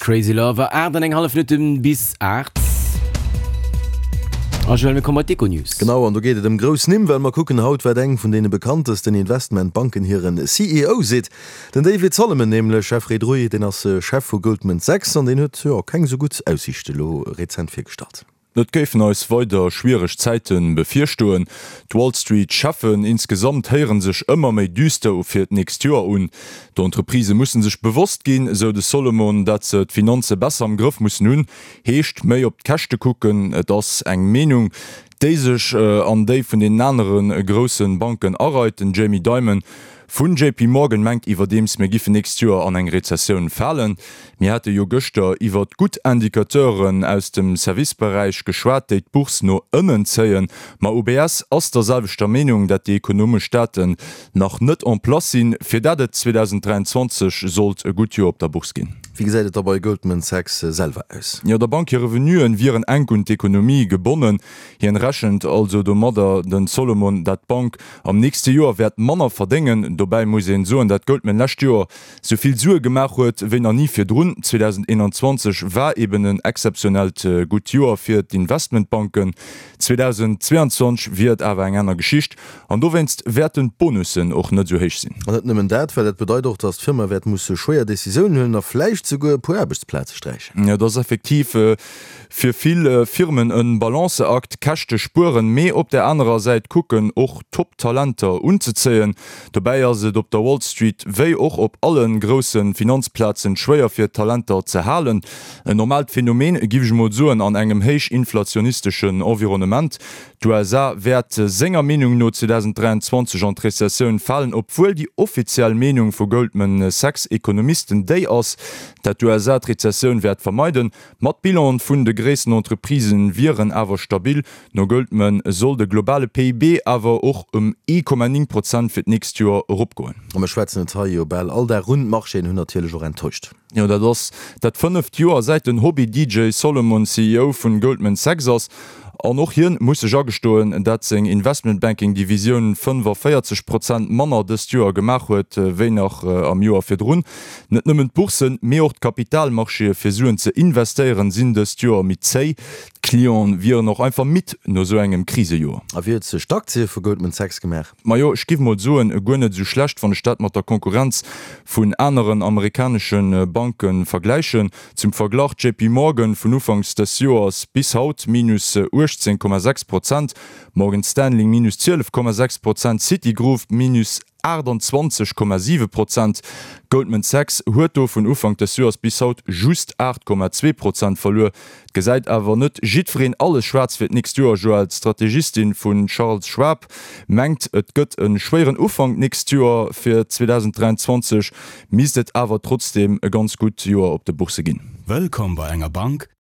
Crazy Lover, 8 an eng hallef Minutten bis 8. A Joël, mir komme bei d'Econews. Genau, an do geet et ëm grouss Nimm, well mer kucken haut, wat eng vun deene bekanntesten Investmentbanken hiren CEO seet. Den David Solomon nämlech, Jeffrey Druy, deen ass Chef vu Goldman Sachs an deen huet, jo, keng esou gutt Aussiichte lo rezent virgestallt. Et géifen eis weider schwiereg Zäite bevirstoen. D'Wall Street Cheffen insgesamt héiere sech ëmmer méi düster u fir d'nächst Joer un. D'Entreprisë musse sech bewosst ginn, esou de Solomon, dat se d'Finanze besser am Grëff mussen hunn. Heescht, méi op d'Käschte kucken. Et ass eng Meenung, déi sech an déi vun deenen anere grousse Banken areit. Den Jamie Dimon vun JP Morgan mengt iwwerdeems, mir giffen nächst Joer an eng Rezessioun falen. Mir hate jo gëschter iwwert gutt Indicateuren aus dem Serviceberäich geschwat, déi d'Bourse no ënnen zéien. Ma UBS ass der selwechter Meenung, dat déi ekonomesch Daten nach net en place sinn, fir dat et 2023 sollt e gutt Joer op der Bourse ginn. Wéi gesäit et da bei Goldman Sachs selwer aus? Jo, der Bank hir Revenuen wieren enk un d'Ekonomie gebonnen. Hien rechent also domadder, den Solomon, dat d'Bank am nächste Joer wäert manner verdéngen. Dobäi muss een soen, dat Goldman lescht Joer sou vill Sue gemaach huet wéi nach ni virdrun. 2021 war eben en exzeptionellt gutt Joer fir d'Investmentbanken, 2022 wier et awer eng aner Geschicht an dowéinst wäerten d'Bonussen och net sou héich sinn. An net nëmmen dat, well dat bedeit och, datt d'Firma wäert musse schwéier Decisiounen huelen a vläicht souguer e puer Aarbechtsplaze sträichen. Et ass effektiv fir vill Firmen e Balanceakt, Käschte spueren, mee op där anerer Säit kucken och Top-Talenter unzezéien. Dobäi ass et op der Wall Street wéi och op alle grousse Finanzplazen schwéier fir Talenter ze halen. En normaalt Phänomen, giff ech mol soen, an engem héich inflationisteschen Environnement. D'USA wäert senger Meenung no 2023 an d'Rezessioun falen, obwuel déi offiziell Meenung vu Goldman Sachs Ekonomisten déi ass, dat d'USA d'Rezessioun wäert vermeiden. Ma d'Bilanen vun de gréissten Entreprisë wieren awer stabil. No Goldman soll de globale PIB awer och ëm 1,9 Prozent fir d'nächst Joer eropgoen. A mir schwätzen et hei jo bal all Dag un, d'Marchéen hunn natierlech och enttäuscht. Jo, dat ass dat fënneft Joer säit den Hobby-DJ Solomon CEO vun Goldman Sachs ass. An och hien muss sech agestoen, dat seng Investmentbanking-Divisioun 45 Prozent manner dëst Joer gemaach huet, wéi nach am Joer virdrun. Net nëmmen d'Bourssen, mee och d'Kapitalmarchéë fir Suen ze investéieren, sinn dëst Joer méi zéi. D'Clienten wieren och einfach midd no sou engem Krisejoer. A wéi huet sech d'Aktie vu Goldman Sachs gemaach? Majo, ech giff mol soen, guer net esou schlecht, wann ech dat mat der Konkurrenz vun aneren amerikanesche Banke vergläichen. Zum Verglach, JP Morgan vun ufanks des Joers bis haut minus 18,6 Prozent, Morgan Stanley minus 12,6 Prozent, Citigroup minus 28,7 Prozent. Goldman Sachs huet do vun Ufank des Joers bis haut just 8,2 Prozent verluer. Et gesäit awer net jiddwereen alles schwaarz fir d'nächst Joer. Joël, d'Strategistin vu Charles Schwab mengt, et gëtt e schwéieren Ufank d'nächst Joer. Fir 2023 misst et awer trotzdeem e ganz gutt Joer op de Boursse ginn. Wëllkomm bei enger Bank.